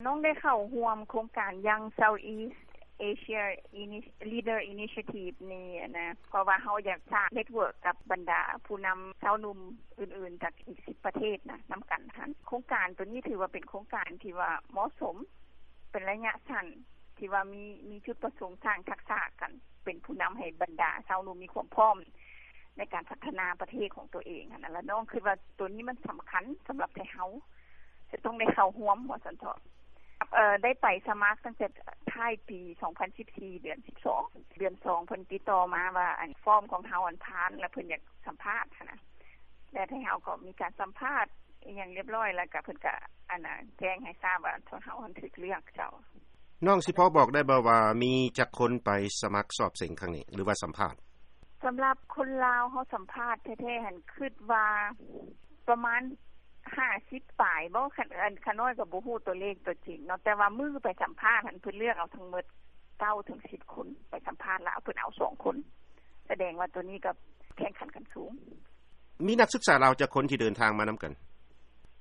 ນ້ອງໄດ້ເຂົ້າຮ່ວມໂຄງການ Young Southeast Asia Leader Initiative ນີ້ຫັ້ນນະ ເພາະວ່າເຮົາຢາກສ້າງ network ກັບບັນດາຜູ້ນຳຊາວໜຸ່ມອື່ນໆ ຈາກອີກສິບປະເທດນະ ນຳກັນຫັ້ນ. ໂຄງການໂຕນີ້ຖືວ່າເປັນໂຄງການທີ່ວ່າເໝາະສົມ ເປັນໄລຍະສັ້ນ ທີ່ວ່າມີ ມີຈຸດປະສົງສ້າງທັກສະກັນ ເປັນຜູ້ນຳໃຫ້ບັນດາຊາວໜຸ່ມມີຄວາມພ້ອມໃນການພັດທະນາປະເທດຂອງຕົວເອງຫັ້ນນະ. ແລ້ວນ້ອງຄິດວ່າໂຕນີ້ມັນສຳຄັນສຳລັບໄທເຮົາ ຈະຕ້ອງໄດ້ເຂົ້າຮ່ວມວ່າຊັ້ນເຖາະ. ເອີ ໄດ້ໄປສະໝັກຕັ້ງແຕ່ທ້າຍປີສອງພັນສິບສີ່ ເດືອນສິບສອງ ເດືອນສອງ ເພິ່ນຕິດຕໍ່ມາວ່າ ອັນ ຟອມຂອງເຮົາ ອັນ ຜ່ານ ແລ້ວເພິ່ນຢາກສຳພາດຫັ້ນນະ ແລ້ວໄທເຮົາກໍມີການສຳພາດອີ່ຫຍັງຮຽບຮ້ອຍ ແລ້ວກໍເພິ່ນກໍ ອັນນະ ແຈ້ງໃຫ້ຊາບວ່າ ເຮົາຫັ້ນຖືກເລືອກເຈົ້າ. ນ້ອງຊິພໍບອກໄດ້ບໍ່ວ່າ ມີຈັກຄົນໄປສະໝັກສອບເສັງຄັ້ງນີ້ ຫຼືວ່າສຳພາດ? ສຳລັບຄົນລາວເຮົາສຳພາດແທ້ໆຫັ້ນ ຄິດວ່າປະມານຫ້າສິບປາຍບໍ ຂະ ຂະນ້ອຍກໍບໍ່ຮູ້ຕົວເລກຕົວຈິງເນາະ ແຕ່ວ່າມື້ໄປສຳພາດຫັ້ນ ເພິ່ນເລືອກເອົາທັງໝົດເກົ້າເຖິງສິບຄົນ ໄປສຳພາດແລ້ວເພິ່ນເອົາສອງຄົນ ສະແດງວ່າໂຕນີ້ກໍແຂ່ງຂັນກັນສູງ. ມີນັກສຶກສາລາວຈັກຄົນທີ່ເດີນທາງມານຳກັນ?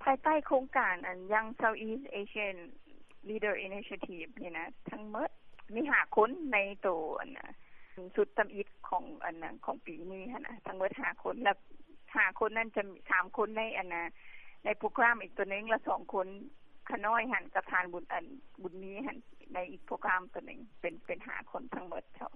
ພາຍໃຕ້ໂຄງການ ອັນ Young Southeast Asian Leader Initiative ນີ້ນະ ທັງໝົດມີຫ້າຄົນໃນໂຕ ອັນນະ ຊຸດທຳອິດຂອງ ອັນນະ ຂອງປີນີ້ຫັ້ນນະ ທັງໝົດຫ້າຄົນ ແລ້ວຫ້າຄົນນັ້ນຈະມີສາມຄົນໃນ ອັນນະ ໃນໂປຣແກຣມອີກໂຕໜຶ່ງ ແລ້ວສອງຄົນ ຂະນ້ອຍຫັ້ນກັບທ່ານບຸນ ອັນ ບຸນມີຫັ້ນ ໃນອີກໂປຣແກຣມໂຕໜຶ່ງ ເປັນ ເປັນຫ້າຄົນທັງໝົດເຈົ້າ.